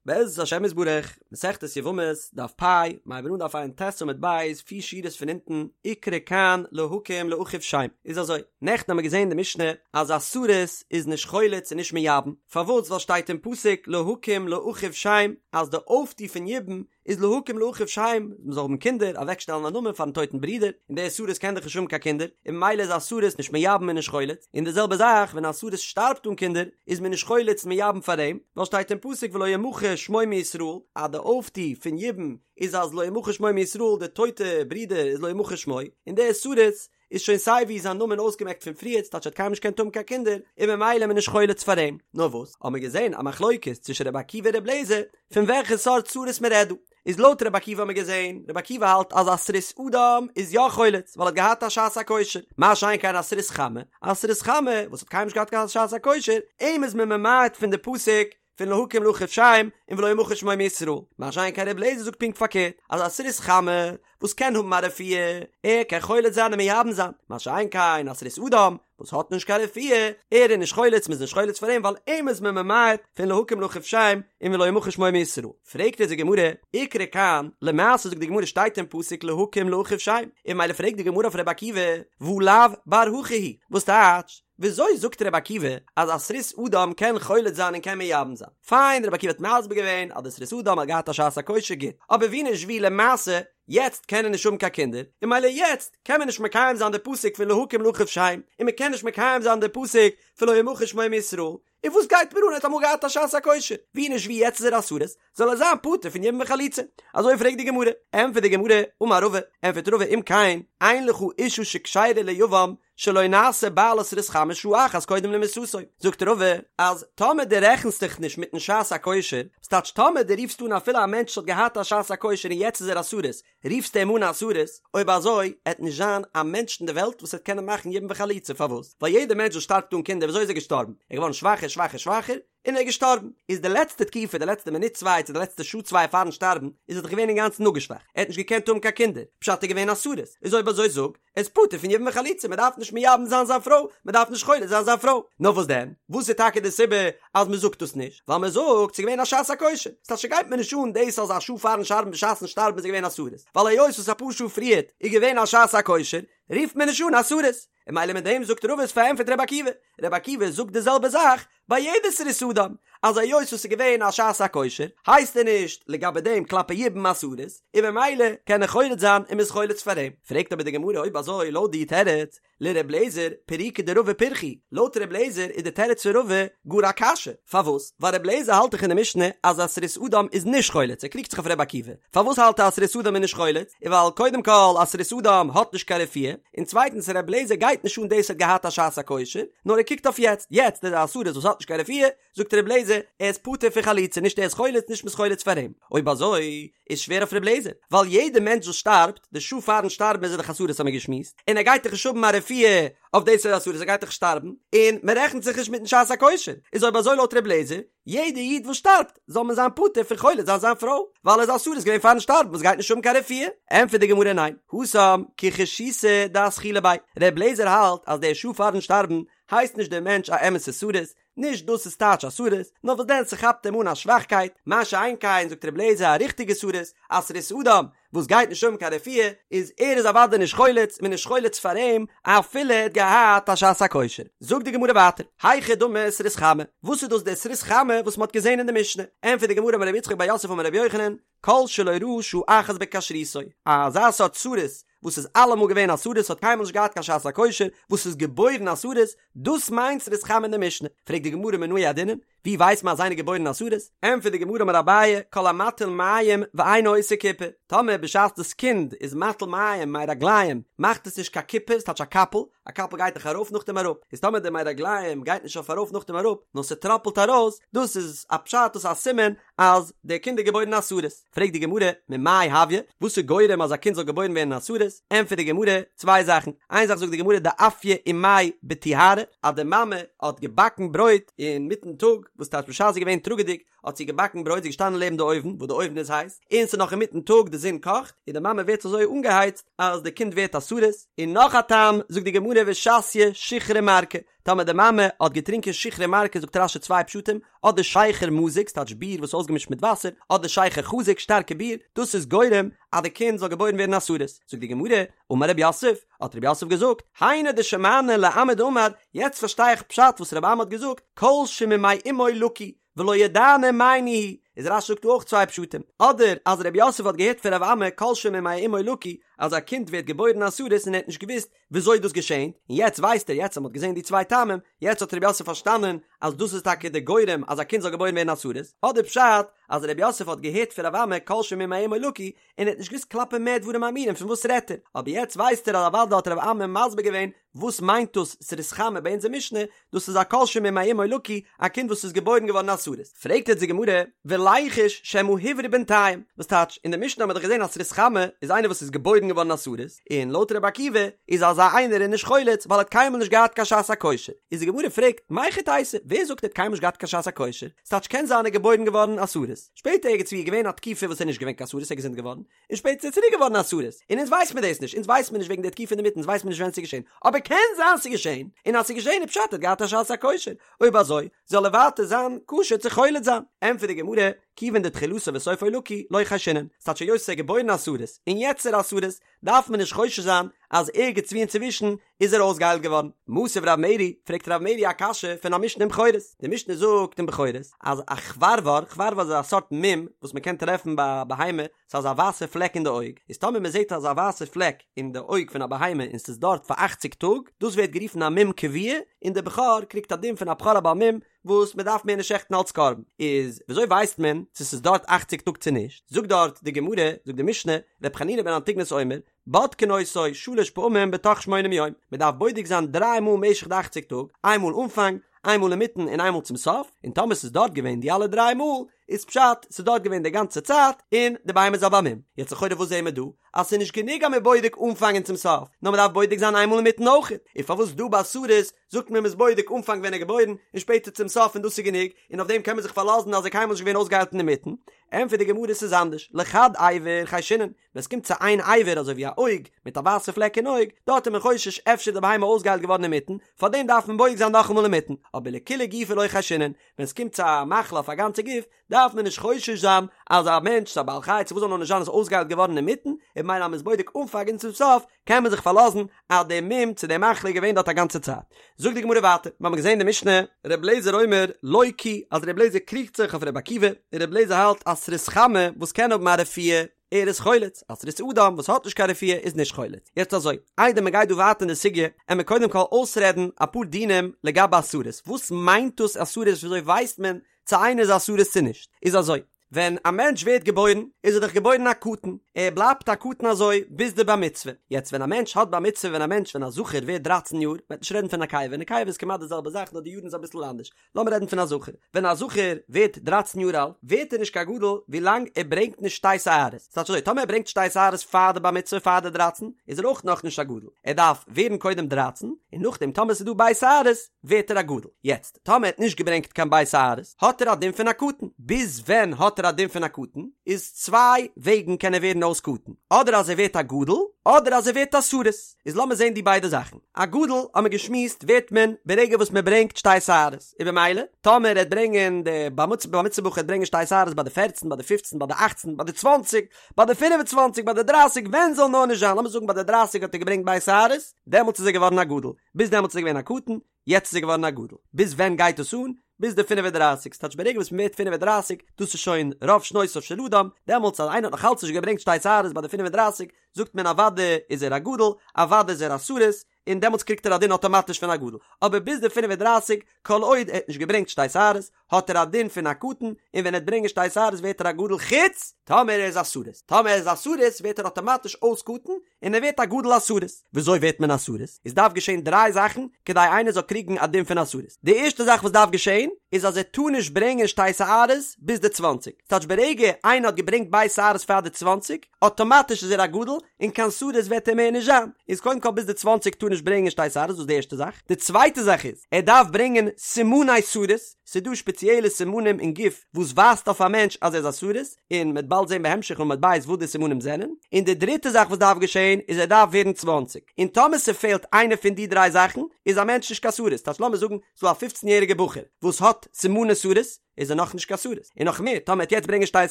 בעזרת השם יתברך, מסכת יבמות, דף פ', מ'הייבן אן דף ע"ט עמוד ב', פיר שורות פון אונטן, איקרי כאן להקים לאחיו שם. איז אזוי, נעכטן האמיר געזען אין די משנה אז א סריס איז נישט חולץ און נישט מייבם, פארוואס? ווייל שטייט אין פסוק להקים לאחיו שם אז די אויפטו פון יבום איז להקים לאחיו שם, מען זאל האבן קינדער, אוועקשטעלן א נאמען פארן טויטן ברודער, און דער סריס קען דאך נישט האבן קיין קינדער, און ממילא איז א סריס נישט מייבם און נישט חולץ, און די זעלבע זאך ווען א סריס שטארבט אן קינדער, איז מען נישט חולץ און מייבם פאר אים, ווייל שטייט אין פסוק ולא ימחה שמו מישראל, אז די אויפטו פון יבום איז אז לא ימחה שמו מישראל, די טויטע ברודער איז לא ימחה שמו, און דער סריס איז שוין סיי ווי זיין נאמען אויסגעמעקט פון פריערט ס'טייטש ער האט קיינמאל נישט געקענט האבן קיין קינדער און ממילא איז מען נישט חולץ פאר אים. נאר וואס האבן מיר געזען א מחלוקת צווישן רבי עקיבא און רבי אליעזר פון וועלכע סארט סריס מען רעדט דא. איז לויט רבי עקיבא האבן מיר געזען רבי עקיבא האלט אז א סריס אדם איז יא חולץ ווייל ער האט געהאט א שעת הכושר מה שאין כן א סריס חמה א סריס חמה וואס האט קיינמאל נישט געהאט קיין שעת הכושר אים איז מען ממעט פון די פסוק פון להקים לאחיו שם און ולא ימחה שמו מישראל, מה שאין כן רבי אליעזר זאגט פונקט פארקערט, אז א סריס חמה וואס קען האבן א רפואה, ער קען חולץ זיין און מייבם זיין, מה שאין כן א סריס אדם וואס האט נישט קיין רפואה, ער איז נישט חולץ, מ'איז נישט חולץ פאר אים ווייל אים איז מען ממעט פון להקים לאחיו שם און ולא ימחה שמו מישראל. פרעגט אונז די גמרא, איקרי כאן, למעשה זאגט די גמרא שטייט אין פסוק להקים לאחיו שם, און ממילא פרעגט די גמרא אויף רבי עקיבא, והא לאו בר הכי הוא, וואס טייטש, וויאזוי זאגט רבי עקיבא אז א סריס אדם קען חולץ זיין און קען מייבם זיין? פיין רבי עקיבא האט מסביר געווען אז די סריס אדם האט געהאט א שעת הכושר גוט, אבער ווי נישט ווי למעשה יעצט קען ער נישט האבן קיין קינדער, און ממילא יעצט קען מען נישט מקיים זיין די פסוק פון להקים לאחיו שם, און מען קען נישט מקיים זיין די פסוק פון לא ימחה שמו מישראל, און וואס גייט מיר אן ער האט אמאל געהאט א שעת הכושר, ווי נישט ווי יעצט איז ער א סריס, זאל ער זיין פטור פון יבום וחליצה. אזוי פרעגט די גמרא, ענטפערט די גמרא, אמר רבא, ענטפערט רבא אם כן, אין לך אשה שכשרה ליבם שלא נעשה בעלה סריס חמה שעה אחת קודם למיתתו, זאגט רבא אז טאמער דו רעכנסט דיך נישט מיטן שעת הכושר, ס'טייטש טאמער דו רופסט אן אפילו א מענטש וואס האט געהאט א שעת הכושר און יעצט איז ער א סריס, רופסטו אים אן א סריס, אויב אזוי עט נישט זיין א מענטש אין די וועלט וואס עט קענען מאכן יבום וחליצה, פארוואס? ווייל יעדער מענטש וואס שטארבט אן קינדער וויאזוי איז ער געשטארבן? ער איז געווארן שוואכער שוואכער שוואכער, און ער איז געשטארבן, איז די לעצטע תקופה, די לעצטע מינוט צוויי צו די לעצטע שעה צוויי פארן שטארבן, איז ער דאך געווען אינגאנצן אפגעשוואכט, ער האט נישט געקענט האבן קיין קינדער, פשט ער איז געווען א סריס, איז אויב אזוי זאג, ער איז פטור פון יבום וחליצה, מען דארף נישט מייבם זיין זיין פרוי, מען דארף נישט חולץ זיין זיין פרוי. נאר וואס דען? וואס איז טאקע די סיבה אז מען זאגט דאס נישט? ווייל מען זאגט ס'איז געווען א שעת הכושר, ס'טייטש ס'גייט מיר נישט אן דאס אז א שעה פארן שטארבן בשעת'ן שטארבן איז ער געווען א סריס, ווייל היות וואס אפאר שעה פריערט איז געווען א שעת הכושר, רופט מען נישט אן א סריס. און ממילא מיט דעם זאגט רבא איז פארענטפערט רבי עקיבא, רבי עקיבא זאגט די זעלבע זאך ביי יעדע סריס אדם, אז היות וואס ס'איז געווען א שעת הכושר הייסט ער נישט לגבי דעם כלפי יבום א סריס, און ממילא קען ער חולץ זיין און מ'איז חולץ פאר אים. פרעגט אבער די גמרא אויב אזוי לויט די תירוץ לר' אליעזר פירוקא דרבא פירכא הוא, לויט ר' אליעזר איז די תירוץ פון רבא גאר א קשיא, פארוואס? ווייל ר' אליעזר האלט דאך אין די משנה אז א סריס אדם איז נישט חולץ, ער קריגט זיך אויף ר' עקיבא, פארוואס האלט ער אז סריס אדם איז נישט חולץ? איז ווייל קודם כל א סריס אדם האט נישט קיין רפואה, און צווייטנס ר' אליעזר גייט נישט אן דאס ער האט געהאט א שעת הכושר, נאר ער קוקט אויף יעצט, יעצט איז ער א סריס וואס האט נישט קיין רפואה, זאגט ר' אליעזר, ער איז פטור פון חליצה, נישט ער איז חולץ נישט מ'איז חולץ פאר אים. אויב אזוי איז שווער אויף ר' אליעזר, ווייל יעדע מענטש וואס שטארבט, די שעה פארן שטארבן איז ער דאך א סריס האט מען געשמועסט, און ער גייט דאך נישט האבן א רפואה אויף דאס ער איז א סריס ער גייט דאך שטארבן, און מ'רעכנט זיך נישט מיטן שעת הכושר, איז אויב אזוי לויט ר' אליעזר, יעדע איד וואס שטארבט זאל מען זיין פטור פון חולץ זיין זיין פרוי, ווייל ער איז א סריס געווען פארן שטארבן וואס גייט נישט האבן קיין רפואה. ענטפערט די גמרא ניין, התם כחשיתא דאתחילה ביה, ר' אליעזר האלט אז די שעה פארן שטארבן הייסט נישט דער מענטש א אמת'ע סריס, נישט דאס איז טייטש א סריס, נאר וואס דען ס'כאפט אים אן א שוואכקייט, מה שאין כן זאגט ר' אליעזר א ריכטיגע סריס, א סריס אדם, וואס גייט נישט האבן קיין רפואה, איז ער איז אוודאי נישט חולץ, מען איז נישט חולץ פאר אים, אפילו ער האט געהאט א שעת הכושר. זאגט די גמרא ווייטער, היכי דמי סריס חמה, וואס איז דאס דער סריס חמה וואס מען האט געזען אין די משנה? ענטפערט די גמרא אמר רב יצחק בר יוסף אמר רבי יוחנן, כל שלא ראה שעה אחת בכשרותו, אזא סארט סריס וואס איז אלעמאל געווען א סריס האט קיינמאל נישט געהאט קיין שעת הכושר, וואס איז געבוירן א סריס, דאס מיינט סריס חמה אין די משנה. פרעגט די גמרא מנא ידעינן, ווי ווייסט מען אז איינער געבוירן א סריס? ענטפערט די גמרא אמר אביי, כל המטיל מים ואינו עושה כיפה, טאמער בשעת דאס קינד איז מטיל מים מי רגליים מאכט עס נישט קיין כיפה, ס'טייטש א קאפל, א קאפל גייט דאך ארויף נאכדעם אראפ, איז טאמער די מי רגליים גייט נישט אויף ארויף נאכדעם אראפ, נאר ס'טראפלט ארויס, דאס איז א פשט דאס איז א סימן אז דער קינד איז געבוירן א סריס. פרעגט די גמרא, ממאי הויא, וואס איז גורם אז א קינד זאל געבוירן ווערן א סריס? ענטפערט די גמרא, צוויי זאכן, איין זאך זאגט די גמרא דאפיא אימיה בטיהרא, אז די מאמע האט געבאקן ברויט אינמיטן טאג, וואס טייטש בשעת זי איז געווען טראגעדיג, האט זי געבאקן ברויט, זי איז געשטאנען לעבן די אויוון, וואס די אויוון איז הייס, און ס'איז נאך אינמיטן טאג, די זון קאכט, און די מאמע ווערט אזוי אנגעהייצט אז די קינד ווערט א סריס, און נאך א טעם, זאגט די גמרא ושתיא שיכרא מרקא, טאמער די מאמע האט געטרינקען שיכרא מרקא זאגט רש"י צוויי פשטים, אדער שכר מזוג, ס'טייטש ביר וואס איז אויסגעמישט מיט וואסער, אדער שכר חזק, שטארקע ביר, דאס איז גורם אז די קינד זאל געבוירן ווערן א סריס. זאגט די גמרא, אמר רב יוסף, האט רב יוסף געזאגט, היינו דשמענא לאמי דאמר, יעצט פארשטיי איך פשט וואס רבי אמי האט געזאגט, כל שממעי אמו לקוי, ולא ידענא מאי ניהו, איז רש"י זאגט דא אויך צוויי פשטים, אדער אז רב יוסף האט געהערט פון רבי אמי כל שממעי אמו לקוי, אז א קינד ווערט געבוירן א סריס און ער האט נישט געוואוסט וויאזוי דאס געשענט, און יעצט ווייסט ער, יעצט אז מען האט געזען די צוויי טעמים, יעצט האט רב יוסף פארשטאנען אז דאס איז טאקע די גורם אז א קינד זאל געבוירן ווערן א סריס, אדער פשט אז רב יוסף האט געהערט פון רבי אמי כל שממעי אמו לקוי, און ער האט נישט געוואוסט כלפי מה דברים אמורים פון וואס רעדט ער, אבער יעצט ווייסט ער אז אוודאי האט רבי אמי מסביר געווען וואס מיינט דאס סריס חמה ביי אונזער משנה, דאס איז א כל שממעי אמו לקוי, א קינד וואס איז געבוירן געווארן א סריס. פרעגט יעצט די גמרא, וליחוש שמא הוברא בינתיים, וואס טייטש, אין די משנה האט מען דאך געזען אז סריס חמה איז איינער וואס איז געבוירן געווארן א סריס, און לויט רבי עקיבא איז אזא איינער איז נישט חולץ ווייל ער האט קיינמאל נישט געהאט קיין שעת הכושר. איז די גמרא פרעגט, מהיכי תיתי, ווער זאגט ער האט קיינמאל נישט געהאט קיין שעת הכושר? ס'טייטש קען זיין ער איז געבוירן געווארן א סריס, שפעטער ערגעץ ווי איז געווען א תקופה וואס ער איז נישט געווען קיין סריס ער איז געזונט געווארן, און שפעטער איז ער צוריק געווארן א סריס, און אונז ווייס מיר דאס נישט, אונז ווייס מיר נישט וועגן די תקופה אינדערמיטן, אונז ווייס מיר נישט ווען ס'איז געשען, אבער קען זיין ס'איז געשען, און אז ס'איז געשען איז פשט ער האט געהאט א שעת הכושר, אויב אזוי זאל ער ווייטער זיין כשר צו חולץ זיין. ענטפערט די גמרא, כיוון דתחילתו וסופו לקוי, לא חיישינן, ס'טייטש היות ער איז געבוירן א סריס, און יעצט איז ער א סריס, דארף מען נישט חושש זיין אז ערגעץ ווי אינצווישן איז ער אויסגעהיילט געווארן. מתיב רב מרי, פרעגט רב מרי א קשיא פון א משנה אין בכורות. די משנה זאגט אין בכורות אז א חברבר, חברבר איז א סארט מום וואס מען קען טרעפן ביי א בהמה, ס'איז אזא ווייסע פלעק אין די אויג, איז טאמער מען זעט אזא ווייסע פלעק אין די אויג פון א בהמה און ס'איז דארט פאר אכציג טאג, דאס ווערט גערופן א מום קבוע, און דער בכור קריגט א דין פון א בכור א בעל מום, וואס מען דארף מער נישט שעכטן אלץ קרבן, איז וויאזוי ווייסט מען צו ס'איז דארט אכציג טאג צו נישט? זאגט דארט די גמרא, זאגט די משנה, ר' חנינא בן אנטיגנוס אומר, בודקין אותו שלש פעמים בתוך שמונים יום, מען דארף בודק זיין דריי מאל משך די אכציג טאג, איין מאל אנפאנג, איין מאל אינמיטן און איין מאל צום סוף, און טאמער ס'איז דארט געווען די אלע דריי מאל, איז פשט ס'איז דארט געווען די גאנצע צייט און די בהמה איז א בעל מום. יעצט לכאורה וואס זעהן מיר דא? אז ס'איז נישט גענוג אז מ'איז בודק אנפאנג און צום סוף, נאר מ'דארף בודק זיין איין מאל אינמיטן אויכעט, און פארוואס דא ביי סריס זאגט מען מ'איז בודק אנפאנג ווען ער איז געבוירן און שפעטער צום סוף און דאס איז גענוג, און אויף דעם קען מען זיך פארלאזן אז ער איז קיינמאל נישט געווען אויסגעהיילט אינמיטן? ענטפערט די גמרא ס'איז אנדערש, לחד אבר חיישינן, ווען ס'קומט צו איין אבר אזוי ווי א אויג מיט א ווייסע פלעק אין אויג, דארט איז מען חושש אפשר איז די בהמה אויסגעהיילט געווארן אינמיטן, פארדעם דארף מען בודק זיין נאכאמאל אינמיטן, אבער לכולי גופא לא חיישינן, ווען ס'קומט צו א מחלה אויף א גאנצע גוף, דארף מען נישט חושש זיין אז א מענטש, צו א בעל חי, צו וואס זאל נאר נישט זיין איז אויסגעהיילט געווארן אינמיטן, און ממילא אז מ'איז בודק אנפאנג און צום סוף, קען מען זיך פארלאזן אז די מום צו די מחלה איז געווען דארט א גאנצע צייט. זאגט די גמרא ווייטער, מיר האבן געזען די משנה, ר' אליעזר אומר לא כי, אז ר' אליעזר קריגט זיך אויף ר' עקיבא, און ר' אליעזר האלט אז סריס חמה וואס קען האבן א רפואה, ער איז חולץ, א סריס אדם וואס האט נישט קיין רפואה איז נישט חולץ. יעצט אזוי, איידער מען גייט דא ווייטער אין די סוגיא, עמיר קודם כל אויסרעדן אפאר דינים לגבי א סריס, וואס מיינט דאס א סריס וויאזוי ווייסט מען צו איינער איז א סריס צו נישט, איז אזוי, ווען א מענטש ווערט געבוירן איז ער דאך געבוירן א קטן, ער בלייבט א קטן אזוי ביז די בר מצוה, יעצט ווען א מענטש האט בר מצוה ווען א מענטש ווען א זכר ווערט דרייצן יאר, מ'וועט נישט רעדן פון נקבה, נקבה איז כמעט די זעלבע זאך נאר די יארן איז אביסל אנדערש, לאמיר רעדן פון א זכר, ווען א זכר ווערט דרייצן יאר אלט ווערט ער נישט קיין גדול ווילאנג ער ברענגט נישט שתי שערות, ס'טייטש אזוי טאמער ער ברענגט שתי שערות פאר די בר מצוה פאר די דרייצן איז ער אויך נאכנישט א גדול, ער דארף ווערן קודם דרייצן און נאכדעם טאמער ס'איז דא ב' שערות ווערט ער א גדול, יעצט טאמער ער האט נישט געברענגט קיין ב' שערות האט ער א דין פון א קטן, ביז ווען האט ער א דין פון א קטן? איז צוויי וועגן קען ער ווערן אויס קטן, אדער אז ער ווערט א גדול אדער אז ער ווערט א סריס, איז לאמיר זען די ביידע זאכן, א גדול האט מען געשמועסט ווערט מען ברגע וואס מען ברענגט שתי שערות, און במילא טאמער ער וועט ברענגען די בר מצוה בר מצוה בחור וועט ברענגען שתי שערות ביי די פערצן ביי די פופצן ביי די אכצן ביי די צוואנציג ביי די פינף און צוואנציג ביי די דרייסיג ווען זאל נאר נישט זיין לאמיר זאגן ביי די דרייסיג האט ער געברענגט ב' שערות דעמאלטס איז ער געווארן א גדול ביז דעמאלטס איז ער געווען א קטן יעצט איז ער געווארן א גדול. ביז ווען גייט עס אן? ביז די פינף און דרייסיג, ס'טייטש ברגע וואס מ'ווערט פינף און דרייסיג, דאס איז שוין רוב שנותיו של אדם, דעמאלטס אז איינער האט נאך אלץ נישט געברענגט שתי שערות ביי די פינף און דרייסיג, זאגט מען אוודאי איז ער א גדול, אוודאי איז ער א סריס, און דעמאלטס קריגט ער א דין אטאמאטיש פון א גדול. אבער ביז די פינף און דרייסיג, כל עוד ער האט נישט געברענגט שתי שערות, האט ער א דין פון א קטן, און ווען ער וועט ברענגען שתי שערות ווערט ער א גדול חוץ. טאמער ער איז א סריס, טאמער ער איז א סריס ווערט ער אטאמאטיש אויס קטן און ער ווערט א גדול א סריס. וויאזוי ווערט מען א סריס? עס דארף געשען דריי זאכן כדי איינער זאל קריגן א דין פון א סריס. די ערשטע זאך וואס דארף געשען איז אז ער טאר נישט ברענגען שתי שערות ביז די צוואנציג. ס'טייטש ברגע איינער האט געברענגט ב' שערות פאר די צוואנציג, אטאמאטיש איז ער א גדול און קיין סריס וועט ער מער נישט זיין. איז קודם כל ביז די צוואנציג טאר נישט ברענגען שתי שערות דאס איז די ערשטע זאך. די צווייטע זאך איז ער דארף ברענגען סימני סריס, ס'איז דא שפעציעלע סימנים אין גוף וואס ווייזט אויף א מענטש אז ער איז א סריס, און מ'וועט באלד זען בהמשך עמוד ב' וואס די סימנים זענען. און די דריטע זאך וואס דארף געשען איז ער דארף ווערן צוואנציג. און טאמער ס'פעלט איינע פון די דריי זאכן איז א מענטש נישט קיין סריס. טייטש לאמיר זאגן ס'דא א פופצן יעריגער בחור וואס האט סימני סריס, איז ער נאכנישט קיין סריס, און נאך מער, טאמער ער וועט יעצט ברענגען שתי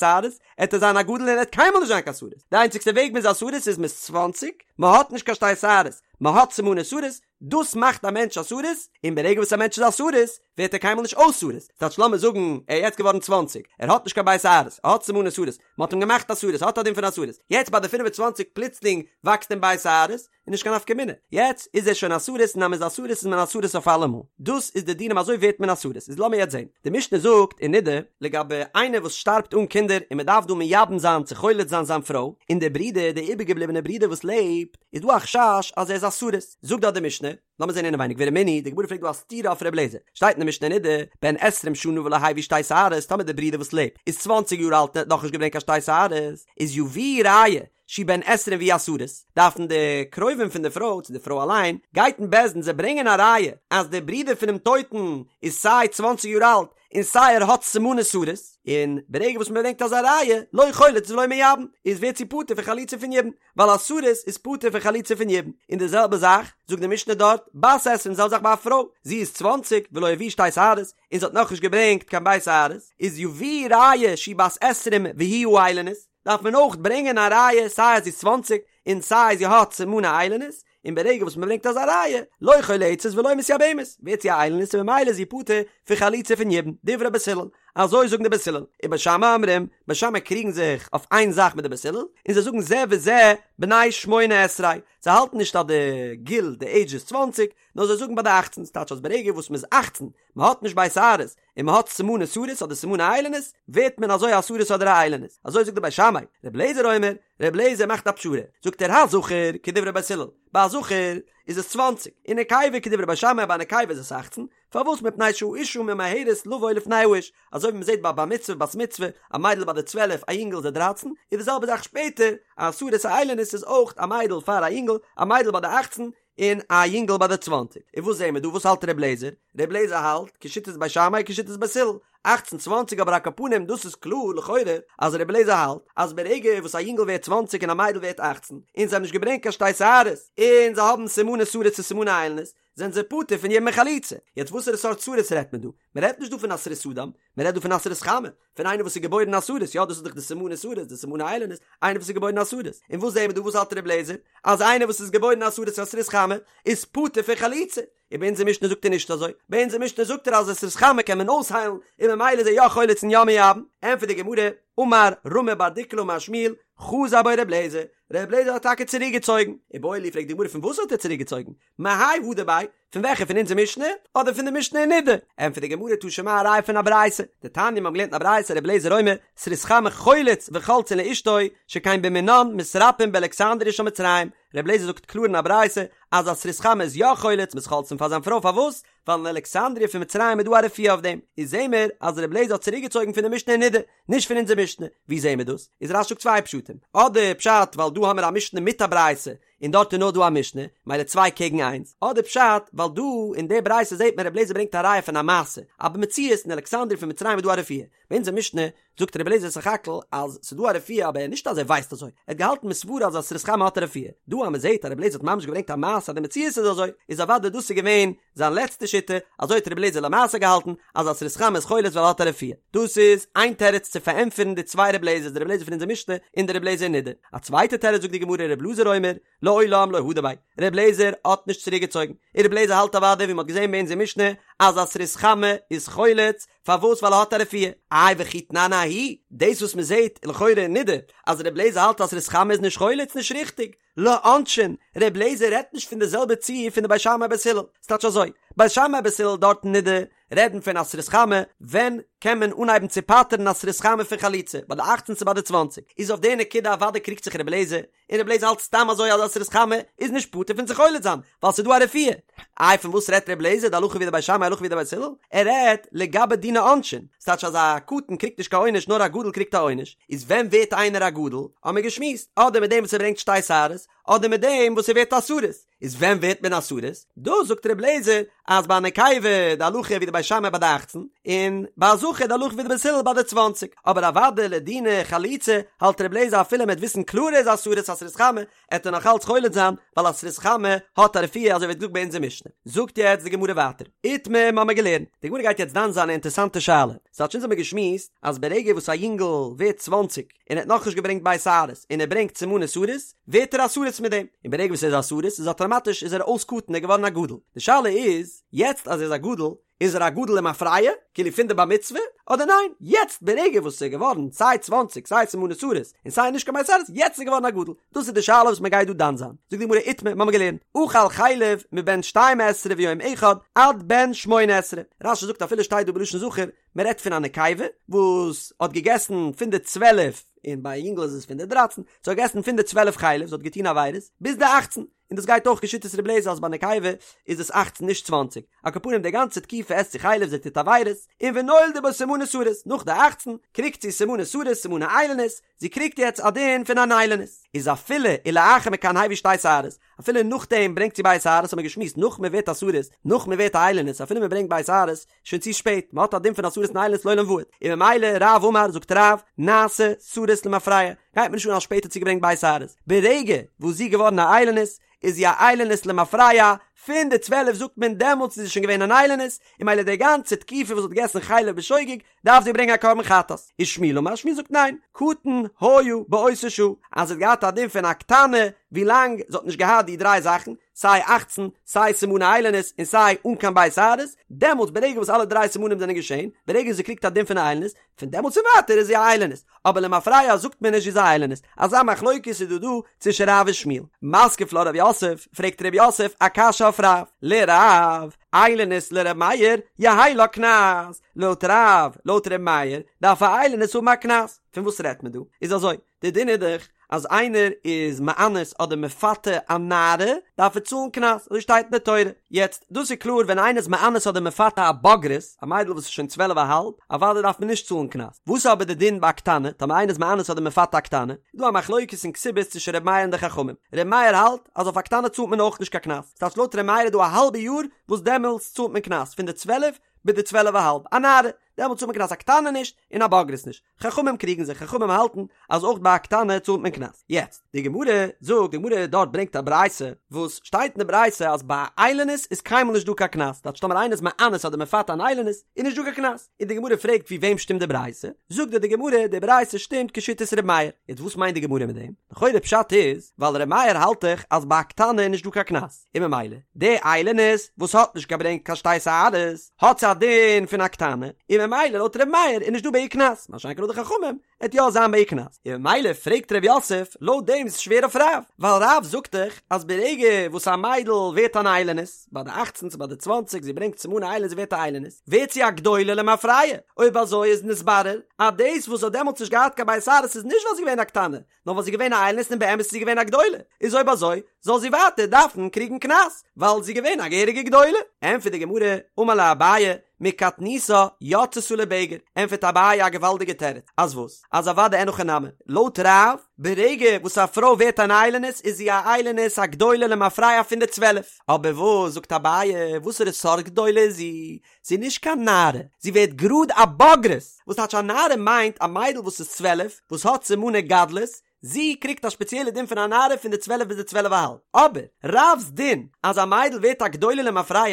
שערות, עט ער זיין א גדול און ער וועט קיינמאל נישט זיין קיין סריס, די איינציגסטע וועג מ'איז א סריס איז מ'איז צוואנציג, מ'האט נישט קיין שתי שערות, מ'האט סימני סריס, דאס מאכט א מענטש א סריס, און ברגע וואס א מענטש איז א סריס, ווערט ער קיינמאל נישט אויס סריס, ס'טייטש לאמיר זאגן ער איז יעצט געווארן צוואנציג, ער האט נישט קיין ב' שערות, ער האט סימני סריס, מ'האט אים געמאכט א סריס, ער האט א דין פון א סריס, יעצט ביי די פינף און צוואנציג פלוצלינג וואקסט אים ב' שערות, איז נישט קיין נפקא מינה, יעצט איז ער שוין א סריס און אז מ'איז א סריס איז מען א סריס אויף אלעמאל, דאס איז די דינים אזוי ווערט מען א סריס, איז לאמיר יעצט זען, די משנה זאגט אין נדה, לגבי איינער וואס שטארבט אן קינדער און מ'דארף דא מייבם זיין צו חולץ זיין זיין פרוי, און דער ברודער, דער איבערגעבליבענער ברודער וואס לעבט, איז דא א חשש אז ער איז א סריס, זאגט דארט די משנה, לאמיר זען אינעווייניג ורמינהי, די גמרא פרעגט דא א סתירה אויף ר' אליעזר, שטייט אין די משנה אין נדה, בן עשרים שנה ולא הביא שתי שערות, טאמער דער ברודער וואס לעבט איז צוואנציג יאר אלט און האט נאכנישט געברענגט קיין שתי שערות, איז יביאו ראיה, שהוא בן עשרים והוא הסריס, דארפן די קרובים פון די פרוי, צו די פרוי אליין, גייט אין בית דין זיי ברענגען א ראיה אז דער ברודער פונעם טויטן איז סיי צוואנציג יאר אלט און סיי ער האט סימני סריס, און ברגע וואס מען ברענגט אזא ראיה, לא חולץ ולא מייבם, איז ווערט זי פטור פון חליצה פון יבום, ווייל א סריס איז פטור פון חליצה פון יבום, און די זעלבע זאך זאגט די משנה דארט, בת עשרים די זעלבע זאך ביי א פרוי, זי איז צוואנציג ולא הביאה שתי שערות, און זי האט נאכנישט געברענגט קיין ב' שערות, איז יביאו ראיה שהיא בת עשרים והיא האילונית, דארף מען אויך ברענגען א ראיה סיי אז זי איז צוואנציג און סיי זי האט סימני איילונית, און ברגע וואס מען ברענגט אזא ראיה, לא חולצת ולא מתייבמת, ווערט זי א איילונית און ממילא איז זי פטור פון חליצה פון יבום, דברי בית הלל, אזוי זאגן די בית הלל, ובית שמאי אומרים, בית שמאי קריגן זיך אויף איין זאך מיט די בית הלל, און זיי זאגן זה וזה בני שמונה עשרה, זיי האלטן נישט אז די גיל, די עידזש איז צוואנציג, נאר זיי זאגן ביי די אכצן, ס'טייטש אז ברגע וואס מ'איז אכצן, מ'האט נישט ב' שערות, און מ'האט סימני סריס אדער סימני איילונית, ווערט מען אזוי א סריס אדער א איילונית. אזוי זאגט די בית שמאי. ר' אליעזר אומר, ר' אליעזר מאכט א פשרה. זאגט ער הזכר כדברי בית הלל, ביי א זכר איז עס צוואנציג, און נקבה כדברי בית שמאי ביי א נקבה איז עס אכצן, פארוואס מפני שהאשה ממהרת לבוא לפני האיש, אזוי ווי מ'זעט ביי בר מצוה בת מצוה, א מיידל ביי די צוועלף א יונגל איז די דרייצן, איז די זעלבע זאך שפעטער, א סריס א איילונית איז אויך א מיידל פאר א יונגל, א מיידל ביי די אכצן, און א יונגל ביי די צוואנציג. און וואס זעהן מיר דא? וואס האלט ר' לעזער? ר' לעזער האלט כשיטת בית שמאי כשיטת בית הלל, אכצן צוואנציג אבער על כל פנים דאס איז קלאר לכאורה אז ר' לעזער האלט אז ברגע וואס א יונגל ווערט צוואנציג און א מיידל ווערט אכצן און זיי האבן נישט געברענגט קיין שתי שערות און זיי האבן סימני סריס צו סימני איילונית זענען זיי פטור פון יבום און חליצה. יעצט וואסערע סארט סריס רעדט מען דא? מען רעדט נישט דא פון א סריס אדם, מען רעדט דא פון א סריס חמה, פון איינער וואס איז געבוירן א סריס, יא דאס איז דאך די סימני סריס, די סימני איילונית, איינער וואס איז געבוירן א סריס, און וואס זעהן מיר דא וואס האלט ר' לעזער? אז איינער וואס איז געבוירן א סריס א סריס חמה איז פטור פון חליצה, און ביי אונזער משנה זאגט ער נישט אזוי, ביי אונזער משנה זאגט ער אז א סריס חמה קען מען אויסהיילן און ממילא איז ער יא חולץ און יא מייבם, ענטפערט די גמרא, אמר רמי בר דיקולא אמר שמואל, חזר בו ר' לעזער, ר' לעזער האט טאקע צוריק געצויגן, איבעיא להו פרעגט די גמרא פון וואס האט ער צוריק געצויגן? מהאי הדר ביה, פון וועלכע פון אונזער משנה, אדער פון די משנה אין נידה? ענטפערט די גמרא תא שמע א ראיה פון א ברייתא, דתניא מיר האבן געלערנט אין א ברייתא רבי אליעזר אומר, סריס חמה חולץ וחולצין לאשתו, שכן במינן מתרפאין באלכסנדריה של מצרים, רבי אליעזר זאגט קלאר אין א ברייתא אז א סריס חמה איז יא חולץ מ'איז חולצין פאר זיין פרוי פארוואס? ווייל אין אלכסנדריה פון מצרים איז דא א רפואה אויף דעם, איז זעהן מיר אז רבי אליעזר האט צוריקגעצויגן פון די משנה אין נידה, נישט פון אונזער משנה, ווי זעהן מיר דאס? איז רש"י זאגט צוויי פשטים, אדער פשט ווייל דא האמיר א משנה מיט א ברייתא, און דארט איז נאר דא א משנה, מילא צוויי קעגן איינס, אדער פשט, ווייל דא אין די ברייתא זעט מען רבי אליעזר ברענגט א ראיה פון א מעשה, אז במציאות אין אלכסנדריה פון מצרים איז דא א רפואה, ביי אונזער משנה זאגט רבי אליעזר סך הכל אז ס'איז דא א רפואה אבער נישט אז ער ווייסט אזוי, ער האט געהאלטן מסברא אז א סריס חמה האט א רפואה, דא אז מ'זעט אז רבי אליעזר האט ממש געברענגט א מעשה אז די מציאות איז אזוי, איז אוודאי דאס איז געווען זיין לעצטע שיטה, אזוי האט רבי אליעזר למעשה געהאלטן, אז א סריס חמה איז חולץ ווייל ער האט א רפואה. דאס איז איין תירוץ צו פארענטפערן די צוויי רבי אליעזר'ס, די רבי אליעזר פון אונזער משנה און די רבי אליעזר אין נידה. א צווייטע תירוץ זאגט די גמרא רבי אלעזר אומר, לעולם לא הדר ביה, רבי אליעזר האט נישט צוריק געצויגן, און רבי אליעזר האלט אוודאי ווי מען האט געזען ביי אונזער משנה אז א סריס חמה איז חולץ, פארוואס ווייל ער האט א רפואה. איי וכי תנן ההיא, דאס וואס מען זעט לכאורה אין נידה אז רבי אליעזר האלט אז סריס חמה איז נישט חולץ נישט ריכטיג, לעונשין, ר' לעזער רעדט נישט פון די זעלבע ציור פון די בית שמאי בית הלל, ס'טייטש אזוי, בית שמאי בית הלל דארט אין נידה רעדן פון א סריס חמה ווען קען מען אנהייבן צו פטר'ן א סריס חמה פון חליצה, ביי די אכצן צו ביי די צוואנציג, איז אויף די נקודה אוודאי קריגט זיך רבי אליעזר, און רבי אליעזר האלט סתם אזוי אז א סריס חמה איז נישט פטור פון צו חולץ זיין, ווייל ס'איז דא א רפואה. איי פון וואס רעדט רבי אליעזר די הלכה ווי די בית שמאי הלכה ווי די בית הלל? ער רעדט לגבי דיני עונשין, ס'טייטש אז א קטן קריגט נישט קיין עונש נאר א גדול קריגט א עונש, איז ווען ווערט איינער א גדול? האמיר געשמועסט, אדער מיט דעם וואס ער ברענגט שתי שערות, אדער מיט דעם וואס ער ווערט א סריס, איז ווען ווערט מען א סריס? דא זאגט רבי אליעזר אז ביי א נקבה די הלכה ווי די בית שמאי ביי די אכצן, און ביי א זכר די הלכה ווי די בית הלל ביי די צוואנציג, אבער אוודאי לדיני חליצה האלט רבי אליעזר אפילו מען וועט וויסן קלאר ער איז א סריס א סריס חמה, עט ער נאך אלץ חולץ זיין, ווייל א סריס חמה האט א רפואה אזוי ווי געזאגט ביי אונזער משנה. זאגט יעצט די גמרא ווייטער, איתמר מ'האמיר געלערנט, די גמרא גייט יעצט דן זיין א אינטערסאנטע שאלה, ס'טייטש אונז האמיר געשמועסט אז ברגע וואס א יונגל ווערט צוואנציג און ער האט נאכנישט געברענגט ב' שערות און ער ברענגט סימני סריס, ווערט ער א סריס מיט דעם, און ברגע וואס ער איז א סריס איז אטאמאטיש איז ער אויס קטן ער איז געווארן א גדול, די שאלה איז, יעצט אז ער איז א גדול, איז ער א גדול למפרע, כאילו פון די בר מצוה, אדער ניין, יעצט ברגע וואס ער איז געווארן סיי צוואנציג סיי סימני סריס און סיי נישט קיין ב' שערות, יעצט איז ער געווארן א גדול, דאס איז די שאלה וואס מען גייט דא דן זיין, זאגט די גמרא איתמר, מ'האמיר געלערנט, אכל חלב מבן שתים עשרה ויום אחד עד בן שמונה עשרה, רש"י זאגט אפילו שטייט דא בלשון זכר, מען רעדט פון א נקבה וואס האט געגעסן פון די צוועלף, און ביי א יונגל איז עס פון די דרייצן, זי האט געגעסן פון די צוועלף חלב, זי האט געטון עבירות, ביז די אכצן, און דאס גייט אויך כשיטת רבי אליעזר אז ביי נקבה איז עס אכצן נישט צוואנציג, על כל פנים די גאנצע תקופה עסט זי חלב זי טוט עבירות, און ונולדו בה סימני סריס, נאך די אכצן קריגט זי סימני סריס סימני איילונית, זי קריגט יעצט א דין פון אן איילונית, איז אפילו ולאחר מכאן הביא שתי שערות, אפילו נאכדעם ברענגט זי ב' שערות האט מען געשמועסט נאך מען ווערט א סריס, נאך מען ווערט א איילונית אפילו מען ברענגט ב' שערות, שוין צו שפעט, מען האט א דין פון א סריס און איילונית לעולם ועד, און ממילא רב אמר זאגט רב, נעשה סריס למפרע, גייט מיר נישט אן אז שפעטער האט זי געברענגט ב' שערות, ברגע וואס זי איז געווארן א איילונית, איז זי א איילונית למפרע, פון די צוועלף זאגט מען דעמאלטס איז זי שוין געווען אן איילונית, און ממילא די גאנצע תקופה וואס זי האט געגעסן חלב בשוגג, דארף זי ברענגען א קרבן חטאת. ושמואל אמר, שמואל זאגט ניין, קטן היה באותה שעה, אז זי האט געהאט א דין פון א קטנה ווילאנג זי האט נישט געהאט די דריי זאכן, סיי אכצן, סיי סימני איילונית, און סיי אן קיין ב' שערות, דעמאלטס ברגע וואס אלע דריי סימנים זענען געשען, ברגע זי קריגט א דין פון א איילונית, פון דעמאלטס און ווייטער איז זי א איילונית, אבער למפרע זאגט מען נישט זי איז א איילונית, אזא מחלוקת איז דא דא צווישן רב און שמואל. מתקיף לה רב יוסף, פרעגט רב יוסף א קשיא אויף רב, לרב, איילונית לר' מאיר, יהא לה קנס, לויט רב, לויט ר' מאיר, דארף א איילונית האבן א קנס, פון וואס רעדט מען דא? איז אזוי, די דין איז דאך אז איינער איז מאנס אדער מפתה א נערה דארף ער צאלן קנס, אזוי שטייט אין די תורה, יעצט דאס איז קלאר ווען איינער איז מאנס אדער מפתה א בוגרת, א מיידל וואס איז שוין צוועלף א האלב, אוודאי דארף מען נישט צאלן קנס, וואס איז אבער די דין ביי א קטנה, טאמער איינער איז מאנס אדער מפתה א קטנה, איז דא א מחלוקת אין כתובות צווישן ר' מאיר און די חכמים, ר' מאיר האלט אז אויף א קטנה צאלט מען אויך נישט קיין קנס, ס'טייטש לויט ר' מאיר איז דא א האלבע יאר וואס דעמאלטס צאלט מען קנס, פון די צוועלף ביז די צוועלף א האלב, א נערה, דעמאלטס צאלט מען קנס א קטנה נישט און א בוגרת נישט. חכמים קריגן זיך, חכמים האלטן אז אויך ביי א קטנה צאלט מען קנס. יעצט, די גמרא זאגט, די גמרא דארט ברענגט א ברייתא, וואס שטייט אין די ברייתא אז ביי א איילונית איז קיינמאל נישט דא קיין קנס, טייטש טאמער איינער איז מאנס אדער מפתה אן איילונית, איז נישט דא קיין קנס. און די גמרא פרעגט ווי וועם שטימט די ברייתא, זאגט דארט די גמרא, די ברייתא שטימט כשיטת ר' מאיר. יעצט וואס מיינט די גמרא מיט דעם? לכאורה פשט איז, ווייל ר' מאיר האלט דאך אז ביי א קטנה איז נישט דא קיין קנס. און ממילא די איילונית וואס האט נישט געברענגט קיין שתי שערות האט זי א דין פון א קטנה, און ממילא לויט ר' מאיר איז נישט דא ביי איר קנס, מה שאין כן לויט די חכמים עט יא זיין ביי איר קנס, און ממילא פרעגט ר' יוסף לויט דעם איז שווער אויף רב, ווייל רב זאגט דאך אז ברגע וואס א מיידל ווערט אן איילונית, ביי די אכצן צו ביי די צוואנציג זי ברענגט סימני איילונית זי ווערט א איילונית, ווערט זי א גדולה למפרע, אויב אזוי איז נתברר אז דאס וואס זי האט דעמאלטס נישט געהאט קיין ב' שערות איז נישט ווייל זי איז געווען א קטנה, נאר ווייל זי איז געווען א איילונית און באמת איז זי געווען א גדולה, איז אויב אזוי זאל זי ווייטער דארפן קריגן קנס, ווייל זי איז געווען א געהעריגע גדולה. ענטפערט די גמרא, אמר ליה אביי, מקטנותה יצתה לבגר, ענטפערט אביי א געוואלדיגע תירוץ, אז וואס? אז אוודאי אין הכי נמי, לויט רב, ברגע וואס א פרוי ווערט אן איילונית איז זי א איילונית א גדולה למפרע פון די צוועלף, אבער וואס זאגט אביי, וואסערע סארט גדולה איז זי? זי איז נישט קיין נערה, זי ווערט גראד א בוגרת, וואס טייטש א נערה מיינט א מיידל וואס איז 12 וואס האט סימני גדלות, זי קריגט א שפעציעלע דין פון א נערה פון די צוועלף ביז די צוועלף א האלב, אבער רב'ס דין אז א מיידל ווערט א גדולה למפרע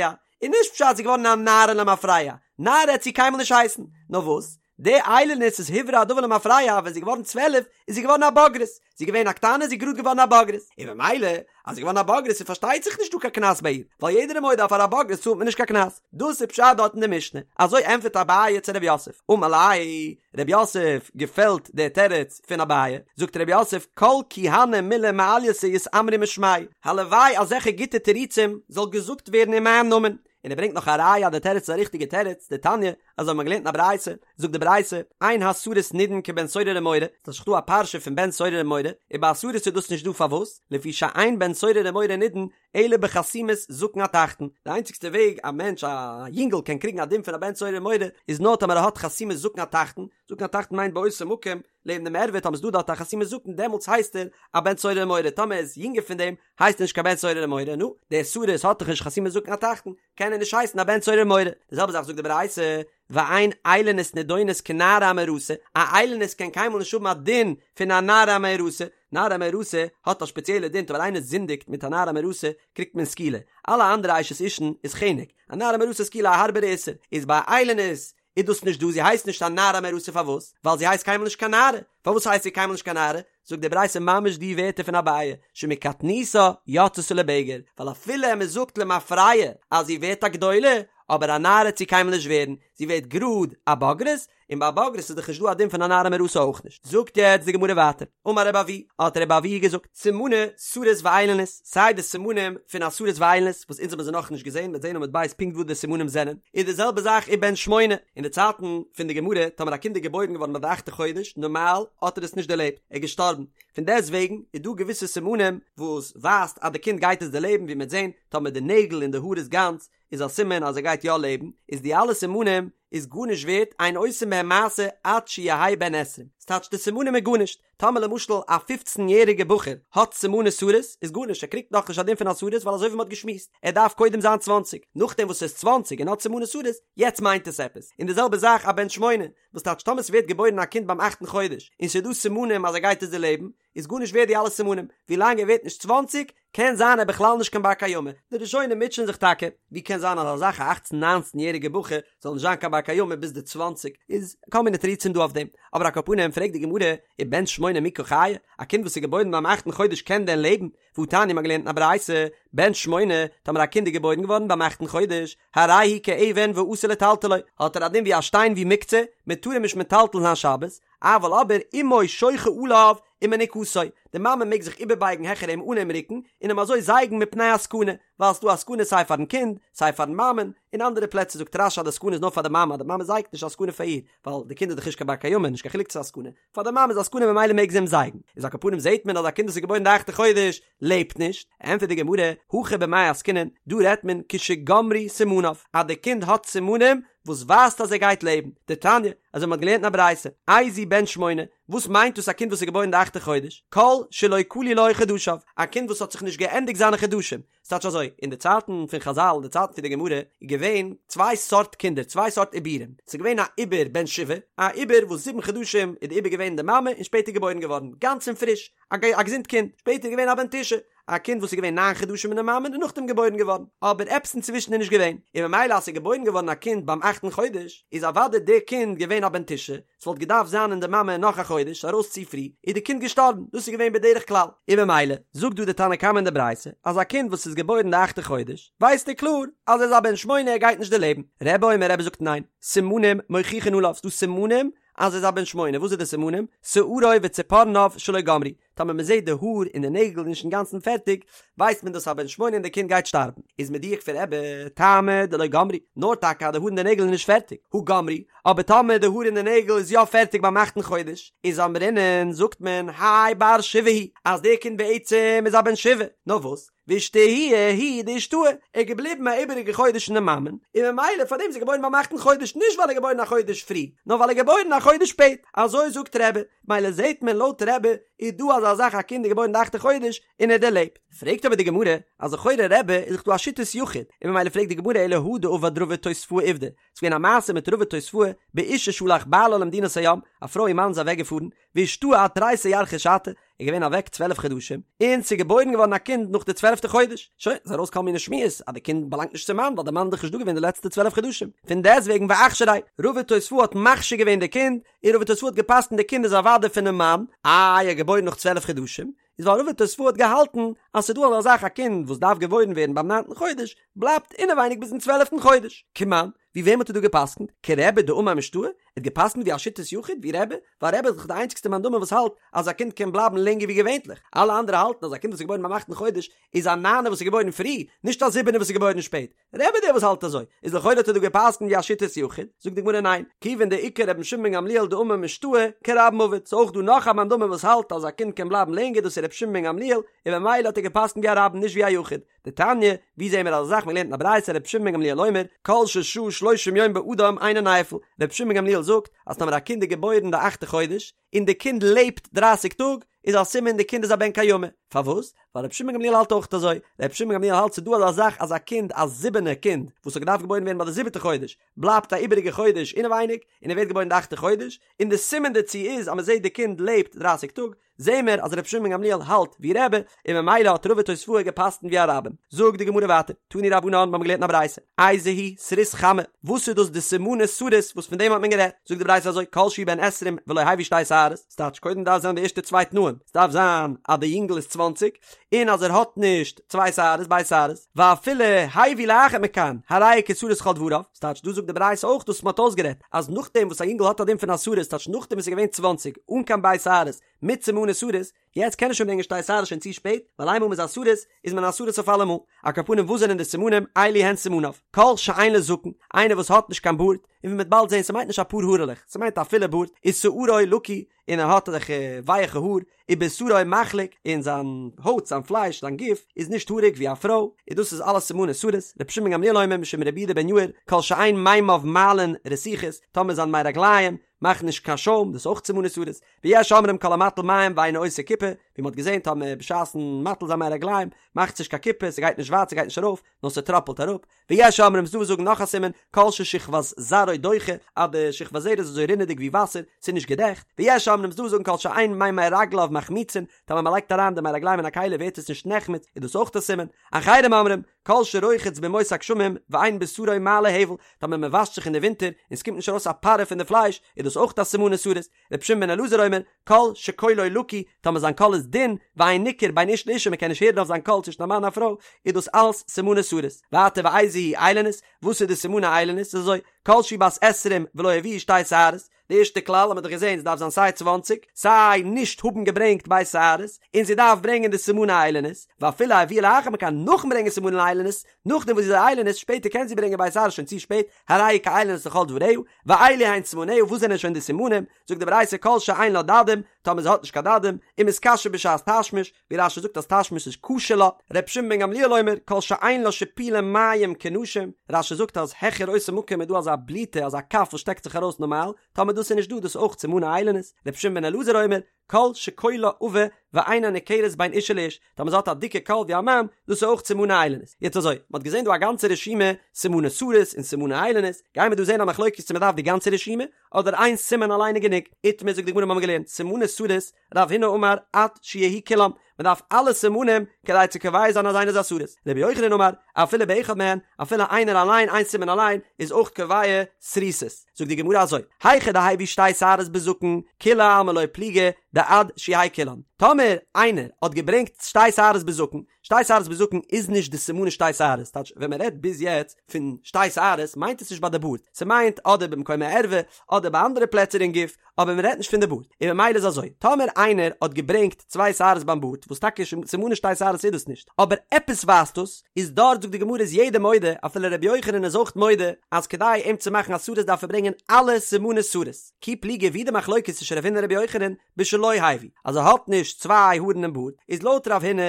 איז נישט פשט זי איז געווארן א נערה למפרע, נערה העט זי קיינמאל נישט הייסן, נאר וואס די איילונית איז הוברר הדבר למפרע ווען זי איז געווארן 12 איז זי געווארן א בוגרת, זי איז געווען א קטנה זי איז גראד געווארן א בוגרת, און ממילא אז זי איז געווארן א בוגרת איז פארשטייט זיך נישט דא קיין קנס ביי איר, ווייל יעדער איז מודה אז פאר א בוגרת צאלט מען נישט קיין קנס, דאס איז פשט דארט אין די משנה, אזוי ענטפערט אביי צו ר' יוסף, אמר ליה, ר' יוסף געפעלט דער תירוץ פון אביי, זאגט ר' יוסף כל כי הני מילי מעלייתא יתאמרו משמאי, הלוואי אזעלכע גוטע תירוצים זאל געזאגט ווערן אין מיין נאמען, און ער ברענגט נאך א ראיה אז די תירוץ איז א ריכטיגע תירוץ, דתניא, אזוי האט מען געלערנט אין א ברייתא, זאגט די ברייתא, אין הסריס נידון כבן סורר ומורה, ס'איז דאך דא א פרשה פון בן סורר ומורה, און ביי א סריס איז דאס נישט דא פארוואס? לפי שאין בן סורר ומורה נידון אלא בחתימת זקן התחתון, די איינציגסטע וועג א מענטש א יונגל קען קריגן א דין פון א בן סורר ומורה איז נאר טאמער ער האט חתימת זקן התחתון, זקן התחתון מיינט באותו מקום לעבן דעם ערווה טאמער ס'איז דא דארט א חתימת זקן דעמאלטס הייסט ער א בן סורר ומורה טאמער ער איז יונגער פון דעם הייסט ער נישט קיין בן סורר ומורה נו דער סריס האט דאך נישט חתימת זקן התחתון קען ער נישט הייסן א בן סורר ומורה די זעלבע זאך זאגט די ברייתא ואין איילונית נידונת כנערה המאורסה א איילונית קען קיינמאל נישט האבן א דין פון א נערה המאורסה נערה המאורסה האט א שפעציעלע דין טאמער איינער זינדיגט מיט א נערה המאורסה קריגט מען סקילה אלע אנדערע אשת אישן איז חנק א נערה המאורסה איז סקילה א הארבערע איסור איז ביי איילונית איז דאס נישט דא, זי הייסט נישט א נערה המאורסה פארוואס? ווייל זי הייסט קיינמאל נישט קיין נערה, פארוואס הייסט זי קיינמאל נישט קיין נערה? זאגט די ברייתא ממש די ווערטער פון אביי, שמקטנותה יצתה לבגר, ווייל אפילו מען זאגט למפרע אז זי ווערט א גדולה, אבער א נערה וועט זי קיינמאל נישט ווערן, זי ווערט גראד א בוגרת, און ביי א בוגרת איז דאך נישט דא א דין פון א נערה המאורסה אויך נישט. זאגט יעצט די גמרא ווייטער, אמר רבי אבהו, האט רבי אבהו געזאגט, סימני סריס ואיילונית, סיי די סימנים פון א סריס ואיילונית, וואס אונז האבן זיי נאכנישט געזען, מ'וועט זען עמוד ב' פונקט וואס די סימנים זענען, איז די זעלבע זאך ובן שמונה, אין די צייטן פון די גמרא, טאמער א קינד איז געבוירן געווארן ביי די אכטע חודש, נארמאל האט ער עס נישט דערלעבט, ער איז געשטארבן, פון דעסט וועגן איז דא געוויסע סימנים וואס ווייזט אז די קינד גייט עס דערלעבן, ווי מ'וועט זען, טאמער די נעגל און די האר איז גאנץ, איז א סימן אז ער גייט יא לעבן, איז די אלע סימנים איז גארנישט ווערט, אין עושין בהם מעשה עד שיהא בן עשרים, ס'טייטש די סימנים איז גארנישט, טאמער למשל א פופצן יעריגע בחור האט סימני סריס איז גארנישט ער קריגט נאכנישט א דין פון א סריס ווייל אזוי ווי מ'האט געשמועסט ער דארף קודם זיין צוואנציג נאכדעם וואס ער איז צוואנציג און האט סימני סריס יעצט מיינט עס עפעס און די זעלבע זאך א בן שמונה וואס טייטש טאמער ס'ווערט געבוירן א קינד ביים אכטן חודש און ס'איז דא סימנים אז ער גייט עס דערלעבן איז גארנישט ווערט די אלע סימנים, ווילאנג ער ווערט נישט צוואנציג קען זיין ער בכלל נישט קיין בר קיימא, די ראשונים מוטשען זיך טאקע, ווי קען זיין אז אזא זאך א אכצן ניינצן יעריגע בחור זאל נישט זיין קיין בר קיימא ביז די צוואנציג, איז כל מיני תירוצים דא אויף דעם, אבער על כל פנים פרעגט די גמרא, ובן שמונה מי קא חיי, א קינד וואס איז געבוירן ביים אכטן חודש קען דען לעבן? והתניא מ'האט געלערנט אין א ברייתא, בן שמונה, טאמער א קינד איז געבוירן געווארן ביים אכטן חודש, הרי הוא כאבן ואסור לטלטלו, האט ער א דין ווי א שטיין ווי מוקצה, מען טאר אים נישט מטלטל זיין שבת, אבל אבער אמו שוחה עליו ומניקתו, די מאמע מעג זיך איבערבייגן העכער אים אן אים רוקן, און אים אזוי זייגן מפני הסכנה, ווייל ס'דא א סכנה סיי פארן קינד, סיי פארן מאמען, אין אנדערע פלעצער זאגט רש"י אז די סכנה איז נאר פאר די מאמע, אז די מאמע זייגט נישט איז א סכנה פאר איר, ווייל די קינד איז דאך נישט קיין בר קיימא, נישט קיין חילוק צו ס'איז א סכנה, פאר די מאמע איז א סכנה ממילא מעג זי אים זייגן, איז על כל פנים זעט מען אז א קינד וואס איז געבוירן די אכטע חודש לעבט נישט, ענטפערט די גמרא, הכא במאי עסקינן, דא רעדט מען כשגמרו סימניו, אז די קינד האט סימנים וואס ווייזט אז ער גייט לעבן, דתניא, אזוי מ'האט געלערנט אין א ברייתא, איזהו בן שמונה, וואס מיינט דאס א קינד וואס איז געבוירן די אכטע חודש, כל שלא כלו לו חדשיו, א קינד וואס האט זיך נישט געענדיגט זיינע חדשים, ס'טייטש אזוי, אין די צייטן פון חזל, אין די צייטן פון די גמרא, איז געווען צוויי סארט קינדער, צוויי סארט עיבורים, ס'איז געווען א עיבור בן שבעה, א עיבור וואס זיבן חדשים איז די עיבור געווען אין די מאמע און שפעטער געבוירן געווארן, גאנץ און פריש, א געזונט קינד, שפעטער איז געווען א בן תשעה, א קינד וואס איז געווען ניין חדשים אין די מאמע און נאכדעם געבוירן געווארן, אבער עפעס אינצווישן איז נישט געווען, און ממילא אז ס'איז געבוירן געווארן א קינד ביים אכטן חודש, איז אוודאי די קינד געווען א בן תשעה, ס'וואלט געדארפט זיין אין די מאמע נאך א חודש, ארויס צו פרי, איז די קינד געשטארבן, דאס איז געווען בדרך כלל, און ממילא זאגט דא די תנא קמא אין די ברייתא, אז א קינד וואס איז געבוירן די אכטע חודש, ווייסט ער קלאר אז ער איז א בן שמונה ער גייט נישט דערלעבן, רבי אומר רבי זאגט ניין, סימנים מוכיחין עליו, ס'דא סימנים אז ער איז א בן שמונה, וואס איז די סימנים? שערו וציפורניו שלא גמרו, טאמער מען זעט די האר און די נעגל איז נישט אינגאנצן פערטיג, ווייסט מען דאס א בן שמונה און די קינד גייט שטארבן. איז מדויק פון רבי, טעמא דלא גמרי, נאר טאקע אז די האר און די נעגל איז נישט פערטיג, הא גמרי, אבער טאמער די האר און די נעגל איז יא פערטיג ביים אכטן חודש, איז אמרינן זאגט מען האי בר שבעה הוא, אז די קינד בעצם איז א בן שבעה, נאר וואס? ואישתהויי הוא דאישתהי, ער איז געבליבן א איבעריגע חודש אין די מאמען, און ממילא פארדעם איז ער געבוירן ביים אכטן חודש, נישט ווייל ער איז געבוירן א חודש פרי, נאר ווייל ער איז געבוירן א חודש שפעט, אזוי זאגט רבי, מילא זעהט מען לויט רבי איז דא אזא זאך א קינד איז געבוירן די אכטע חודש און ער דערלעבט, פרעגט אבער די גמרא אז לכאורה רבי איז דאך דא א שיטת יחיד, און ממילא פרעגט די גמרא אלא הא דעבד רבא תוספאה עובדא, ס'איז געווען א מעשה מיט רבא תוספאה באשה שהלך בעלה למדינת הים, א פרוי איר מאן איז אוועק געפארן, ואישתהי עד תריסר ירחי שתא, איז געווען אוועק צוועלף חדשים, און ס'איז געבוירן געווארן א קינד נאך די צוועלפטע חודש, שוין, איז ארויס כל מיני שמועות אז די קינד באלאנגט נישט צום מאן ווייל די מאן איז דאך נישט דא געווען די לעצטע צוועלף חדשים, פון דעסטוועגן ואכשריה, רבא תוספאה האט מכשיר געווען די קינד, און רבא תוספאה האט געפסקנט די קינד איז אוודאי פונעם מאן, איי ער איז געבוירן נאך צוועלף חדשים, איז ווייל רבא תוספאה האט געהאלטן אז ס'איז דא אזא זאך א קינד וואס דארף געבוירן ווערן ביים ניינטן חודש, בלייבט אינעווייניג ביזן צוועלפטן חודש, כמאן. ווי וועם האט ער דא גע'פסק'נט? כרבי דאמר משתעי? ער האט גע'פסק'נט ווי א שיטת יחיד, ווי רבי? ווייל רבי איז דאך די איינציגסטע מאן דאמר וואס האלט אז א קינד קען בלייבן לענגער ווי געווענטליך, אלע אנדערע האלטן אז א קינד וואס איז געבוירן ביים אכטן חודש איז א ניינער וואס איז געבוירן פרי, נישט א זיבענער וואס איז געבוירן שפעט. רבי דער וואס האלט אזוי, איז לכאורה האט ער דא גע'פסק'נט ווי א שיטת יחיד, זאגט די גמרא ניין, כיוון דאיכא רבן שמעון בן גמליאל דאמר משתעי כרבים עביד, ס'איז אויך דא נאך א מאן דאמר וואס האלט אז א קינד קען בלייבן לענגער דאס איז רבי שמעון בן גמליאל, און ממילא האט ער גע'פסק'נט ווי א רבים נישט ווי א יחיד. דתניא, ווי זעהן מיר אזא זאך מ'לערנט אין א ברייתא רבי שמעון בן גמליאל אומר, כל ששהה שלושים יום באדם אינו נפל, רבי שמעון בן גמליאל זאגט אז טאמער א קינד איז געבוירן די אכטע חודש, און די קינד לעבט דרייסיג טאג, איז א סימן די קינד איז א בן קיימא, פארוואס? ווייל רבי שמעון בן גמליאל האלט אויך אזוי, רבי שמעון בן גמליאל האלט ס'איז דא אזא זאך אז א קינד א זיבענע קינד וואס האט געדארפט געבוירן ווערן ביי די זיבעטע חודש, בלייבט א איבעריגע חודש אינעווייניג, און ער ווערט געבוירן די אכטע חודש, און די סימן דערצו איז אז מ'זעט די קינד לעבט דרייסיג טאג, זעהן מיר אז רבי שמעון בן גמליאל האלט ווי רבי, און ממילא האט רבא תוספאה גע'פסק'נט ווי א רבים. זאגט די גמרא ווייטער, תנו רבנן, מיר האבן געלערנט אין א ברייתא, איזהו סריס חמה, וואס איז דאס די סימני סריס וואס פון דעם האט מען גערעדט? זאגט די ברייתא אזוי, כל שהוא בן עשרים ולא הביא שתי שערות, ס'טייטש קודם דארף זיין די ערשטע צוויי תנאים, ס'דארף זיין אז די יונגל איז צוואנציג, און אז ער האט נישט צוויי שערות, ב' שערות, ואפילו הביא לאחר מכאן, הרי הוא כסריס לכל דבריו, ס'טייטש דא זאגט די ברייתא אויך דאס וואס מ'האט אויסגערעדט, אז נאכדעם וואס א יונגל האט א דין פון א סריס, ס'טייטש נאכדעם וואס ער איז געווען צוואנציג, אן קיין ב' שערות, מיט סימני סריס, יעצט קען ער שוין ברענגען שתי שערות שוין צו שפעט, ווייל איינמאל מ'איז א סריס, איז מען א סריס אויף אלעמאל. על כל פנים וואס זענען די סימנים, אלו הן סימניו, כל שאין לו זקן, איינער וואס האט נישט קיין בארד, און ווי מ'וועט באלד זען ס'מיינט נישט אפאר הארעלעך, ס'מיינט א פולע בארד, ושערו לקוי, און ער האט אזעלכע ווייעכע האר, ובשרו מחליק, און זיין הויט, זיין פלייש, זיין גוף, איז נישט האריג ווי א פרוי, און דאס איז אלעס סימני סריס, רבי שמעון בן גמליאל אומר משום רבי יהודה בן יאיר, כל שאין מימיו מעלין רתיחות, טאמער זיין מי רגליים מאכן נישט קיין שוים, דאס איז אויך סימני סריס, ויש אומרים כל המטיל מים ואינו עושה כיפה, ווי מ'האט געזען טאמער בשעת'ן מטיל זיין מי רגליים מאכט זיך נישט קיין כיפה, ס'גייט נישט ווייט, ס'גייט נישט ארויף, נאר ס'טראפלט אראפ, ויש אומרים ס'דא וואס זאגן נאך א סימן, כל ששכבת זרעו דוחה, אז די שכבת זרע איז אזוי רינעדיג ווי וואסער, ס'איז נישט געדעכט, ויש אומרים ס'דא וואס זאגן כל שאין מימי רגליו מחמיצין, טאמער מ'לייגט אריין די מי רגליים אין א כלי ווערט עס נישט נחמץ, איז דאס אויך א סימן, אחרים אומרים, כל שרוחץ בימות הגשמים ואין בשרו מעלה הבל, טאמער מ'וואשט זיך אין די ווינטער און ס'קומט נישט ארויס א פארע פון די פלייש, איז דאס אויך א סימני סריס, רבי שמעון בן אלעזר אומר, כל שקולו לקוי, טאמער זיין קול איז דין, ואין ניכר בין איש לאשה מ'קען נישט הערן אויף זיין קול צווישן א מאן און א פרוי, איז דאס אלס סימני סריס. ווייטער ואיזו היא איילונית, וואס איז די סימני איילונית? איז אזוי, כל שהיא בת עשרים ולא הביאה שתי שערות, די ערשטע כלל האט מען דאך געזען, ס'דארף זיין סיי צוואנציג, סיי נישט האבן געברענגט ב' שערות, און זי דארף ברענגען די סימני איילונית, ואפילו הביאה לאחר מכאן נאכן ברענגען סימני איילונית, נאכדעם וואס זי איז א איילונית, שפעטער קען זי ברענגען ב' שערות שוין צו שפעט, הרי היא כאיילונית לכל דבריה, ואלו הן סימניה, וואס זענען שוין די סימנים? זאגט די ברייתא כל שאין לה דדים, טאמער זי האט נישט קיין דדים, ומתקשה בשעת תשמיש, ווי רש"י זאגט אז תשמיש איז קשה לה, ר' שמעון בן גמליאל אומר כל שאין לה שיפולי מים כנשים, רש"י זאגט אז העכער אותו מקום איז דא אזא בליטה אזא כף וואס שטעקט זיך ארויס נארמאל, טאמער דאס איז נישט דא דאס איז אויך סימני איילונית, ר' שמעון בן אלעזר אומר כל שקולה עבה ואינה ניכרת בין אישה לאיש, טאמער זי האט א דיקע קול ווי א מאן, דאס איז אויך סימני איילונית. יעצט אזוי, מען האט געזען דא א גאנצע רשימה סימני סריס און סימני איילונית, גייען מיר דא זען א מחלוקת צו מען דארף די גאנצע רשימה, אדער איין סימן אליין איז גענוג. איתמר זאגט די גמרא מיר האבן געלערנט סימני סריס, רב הונא אמר עד שיהיו כולם, מען דארף אלע סימנים כדי צו קובע זיין אז איינער איז א סריס. רבי יוחנן אמר, אפילו באחד מהן, אפילו איינער אליין, איין סימן אליין, איז אויך קובע סריסות. זאגט די גמרא אזוי, היכא דהביא שתי שערות בזקן, כולי עלמא לא פליגי דעד שיהיו כולן. טאמער איינער האט געברענגט שתי שערות בזקן, שתי שערות בזקן איז נישט די סימני שתי שערות, טייטש ווען מען רעדט ביז יעצט פון שתי שערות מיינט עס נישט ביי די בארד, ס'מיינט אדער במקום הערווה אדער ביי אנדערע פלעצער אין גוף, אבער מען רעדט נישט פון די בארד, און ממילא איז אזוי, טאמער איינער האט געברענגט צוויי שערות ביים בארד, וואס טאקע סימני שתי שערות איז דאס נישט, אבער עפעס ווייזט דאס, איז דארט זאגט די גמרא איז יעדער מודה, אפילו ר' יוחנן איז אויך מודה, אז כדי אים צו מאכן א סריס דארף ער ברענגען אלע סימני סריס, כי פליגי ווי די מחלוקת צווישן רב הונא און ר' יוחנן, בשלא הביא, אז ער האט נישט צוויי הארן אין בארד, איז לויט רב הונא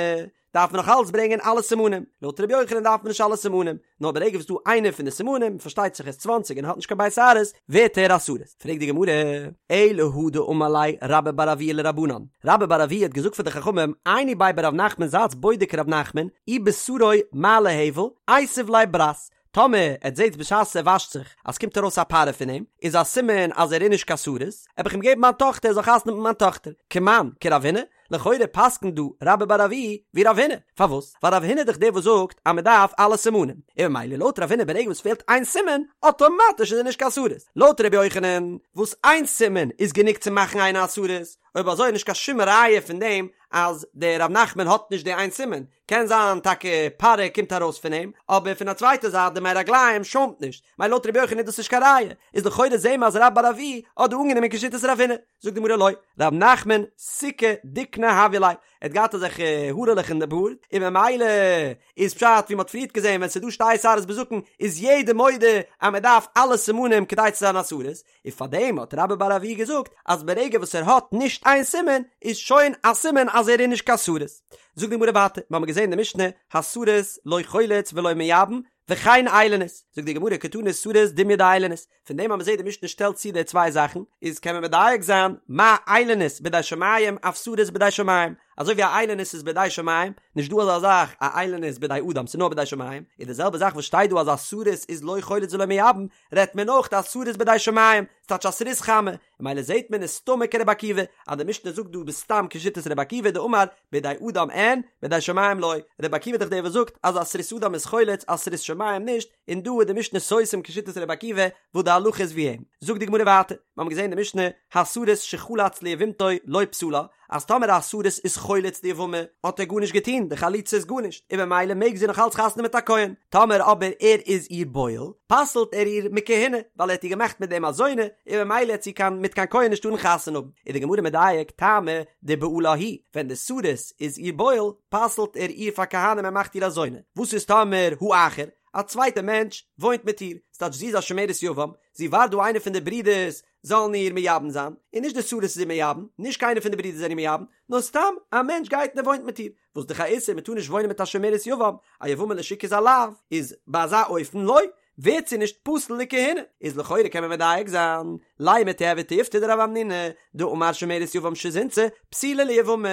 דארף מען נאך אלץ ברענגען אלע סימנים, לויט ר' יוחנן דארף מען נישט אלע סימנים, נאר ברגע וואס דא איינער פון די סימנים, פארשטייט זיך ער איז צוואנציג און האט נישט קיין ב' שערות, ווערט ער א סריס. פרעגט די גמרא, אלא הא דאמר ליה רבה בר אבוה לרבנן, רבה בר אבוה האט געזאגט פאר די חכמים, עיינו ביה ברב נחמן זייטס בודק רב נחמן, אי בשרו מעלה הבל, איתיב ליה ברת, טאמער עטס זעטס בשעת ער וואשט זיך אז ס'קומט ארויס א פארע פון אים, איז א סימן אז ער איז נישט קיין סריס, עב איך אים געבן מיין טאכטער ער זאל חתונה האבן מיט מיין טאכטער. כמאן, כרב הונא, לכאורה פסק'נט דא רבה בר אבוה ווי רב הונא, פארוואס? ווייל רב הונא איז דאך דער וואס זאגט אז מ'דארף אלע סימנים, און ממילא לויט רב הונא ברגע וואס פעלט איין סימן, אטאמאטיש איז ער נישט קיין סריס. לויט רבי יוחנן, וואס איין סימן איז גענוג צו מאכן איינער א סריס, אויב אזוי איז נישט קיין שום ראיה פון דעם אז דער ר' נחמן האט נישט די איין סימן, קען זיין טאקע פארע קומט ארויס פון אים, אבער פון א צווייטע זייט די מי רגליים שוימט נישט, מילא לויט ר' יוחנן איז דאס נישט קיין ראיה, איז לכאורה זעהן מיר אז רבה בר אבוה האט דא אנגענומען כשיטת רב הונא, זאגט די גמרא לא, ר' נחמן סיכי דיקנא הוה ליה, ער האט געהאט אזעלכע הארעלעך אין די בארד, און ממילא איז פשט ווי מען האט פריערט געזעהן ווען ס'איז דא שתי שערות בזקן איז יעדער מודה אז מען דארף אלע סימנים כדי צו זיין א סריס, און פארדעם האט רבה בר אבוה געזאגט אז ברגע וואס ער האט נישט איין סימן איז שוין א סימן אז ער איז נישט קיין סריס. זאגט די גמרא ווייטער, מיר האבן געזען אין די משנה הסריס לא חולץ ולא מייבם וכן איילונית, זאגט די גמרא קתני סריס דומיא דאיילונית, פון דעם אז מען זעט די משנה שטעלט צו די צוויי זאכן, איז קען מען מדייק זיין מה איילונית בידי שמים אף סריס בידי שמים, אזוי ווי א איילונית איז בידי שמים, נישט דא אזא זאך א איילונית בידי אדם ס'איז נאר בידי שמים, איז די זעלבע זאך וואס שטייט דא אז א סריס איז לא חולץ ולא מייבם, רעדט מען אויך א סריס בידי שמים, ס'טייטש א סריס חמה, און ממילא זעהט מען איז סתמא כרבי עקיבא, אז די משנה זאגט דא בסתם כשיטת רבי עקיבא דאמר בידי אדם אין, בידי שמים לא, רבי עקיבא איז דאך דער וואס זאגט אז א סריס אדם איז חולץ א סריס שמים נישט, און דא איז די משנה סותם כשיטת רבי עקיבא וואס די הלכה איז ווי אים. זאגט די גמרא ווייטער, מיר האבן געזעהן די משנה, הסריס שחלץ ליבמתו לא פסלה, אז טאמער א סריס איז חולץ די יבמה האט ער גארנישט געטון, די חליצה איז גארנישט, און במילא מעג זי נאך אלץ חתונה מיט א כהן, טאמער אבער ער איז איר בועל, פסל'ט ער איר מכהונה, ווייל ער האט איר געמאכט מיט דעם א זונה, און במילא העט זי קיין מיט קיין כהן נישט טארן חתונה האבן. איז די גמרא מדייק, טעמא דבעלה הוא, ווען די סריס איז איר בועל, פסל'ט ער איר פאר כהנים און מאכט איר א זונה, וואס איז טאמער האחר, א צווייטע מענטש וואוינט מיט איר, ס'טייטש זי איז א שומרת יבם, זי ווארט דא איינער פון די ברידערס זאלן איר מייבם זיין, און נישט די סריס איז איר מייבם, נישט קיינער פון די ברידער זענען איר מייבם, נאר סתם א מענטש גייט און ער וואוינט מיט איר, וואס דאך א איסור, מען טאר נישט וואוינען מיט א שומרת יבם, א יבמה לשוק איז א לאו, איז ביי אזא אופן לא, ווערט זי נישט פסול לכהונה, איז לכאורה קען מען מדייק זיין, לימא תיהוי תיובתא דרב המנונא, דאמר שומרת יבם שזינתה, פסולה ליבמה,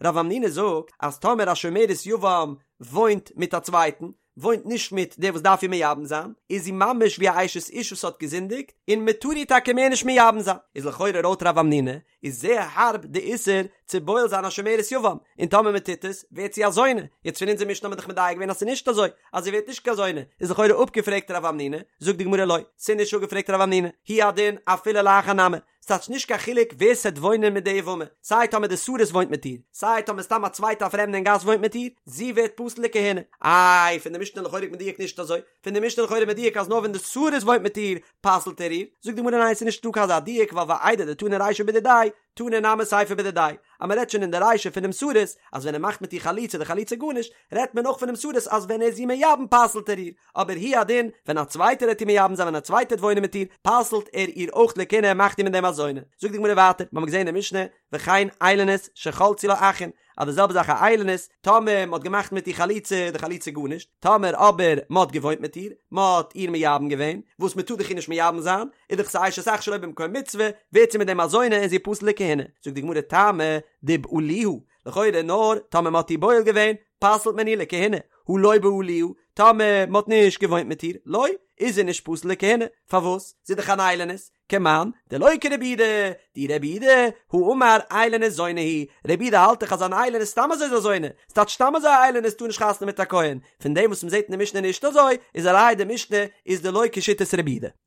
רב המנונא זאגט אז טאמער א שומרת יבם וואוינט מיט א צווייטן, וואוינט נישט מיט דער וואס דארף איר מייבם זיין, איז זי ממש ווי א אשת איש וואס האט געזינדיגט, און מען טאר איר טאקע מער נישט מייבם זיין. איז לכאורה לויט רב המנונא איז זייער הארב די איסור צו בועל זיין א שומרת יבם, און טאמער מען טוט עס, ווערט זי א זונה. יעצט פון אונזער משנה האט מען דאך מדייק געווען אז ס'איז נישט אזוי, אז זי ווערט נישט קיין זונה, איז לכאורה אפגעפרעגט רב המנונא, זאגט די גמרא לא, ס'איז נישט אפגעפרעגט רב המנונא, הוא הדין אפילו לאחר נמי, ס'טייטש נישט קיין חילוק ווער ס'עט וואוינען מיט די יבמה, סיי טאמער די סריס וואוינט מיט איר, סיי טאמער סתם א צווייטע א פרעמדע אין גאס וואוינט מיט איר, זי ווערט פסול לכהונה. איי, פון די משנה לכאורה מדויק נישט אזוי, פון די משנה לכאורה מדויק אז נאר ווען די סריס וואוינט מיט איר פסל'ט ער איר, זאגט די גמרא ניין ס'איז נישטא קיין אזא דיוק ווייל ואיידי דתנא רישא בדידיה, תנא נמי סיפא בדידיה, אז מ'רעדט שוין אין די רישא פונעם סריס אז ווען ער מאכט מיט איר חליצה די חליצה גארנישט, רעדט מען אויך פונעם סריס אז ווען ער איז איר מייבם פסל'ט ער איר, אבער הוא הדין, ווען א צווייטער העט איר מייבם זיין ווען א צווייטער העט וואוינען מיט איר, פסל'ט ער איר אויך לכהונה ער מאכט איר מיט דעם א זונה. זאגט די גמרא ווייטער, מיר האבן געזען אין די משנה, וכן איילונית שחלצו לה אחין, אז די זעלבע זאך א איילונית, טאמער מ'האט געמאכט מיט איר חליצה, די חליצה גארנישט, טאמער אבער מ'האט געוואוינט מיט איר, מ'האט איר מייבם געווען, וואס מ'טאר דאך איר נישט מייבם זיין, איז דאך ס'איז אשת אח שלא במקום מצוה, ווערט זי מיט דעם א זונה און זי איז פסול לכהונה. זאגט די גמרא טעמא דבעלוה, לכאורה נאר טאמער מ'האט איר בועל געווען, פסל'ט מען איר לכהונה, הא לא בעלוה, טאמער מ'האט נישט געוואוינט מיט איר, לא, איז זי נישט פסול לכהונה, פארוואס? זי איז דאך אן איילונית, כמאן, דלא כרבי יהודה, דאי רבי יהודה, הא אמר איילונית זונה היא, רבי יהודה האלט דאך אז אן איילונית סתם אזוי איז א זונה, ס'טייטש סתם אזוי א איילונית טאר נישט חתונה מיט א כהן, פון דעם וואס מ'זעט אין די משנה נישט אזוי, איז א ראיה די משנה איז דלא כשיטת רבי יהודה.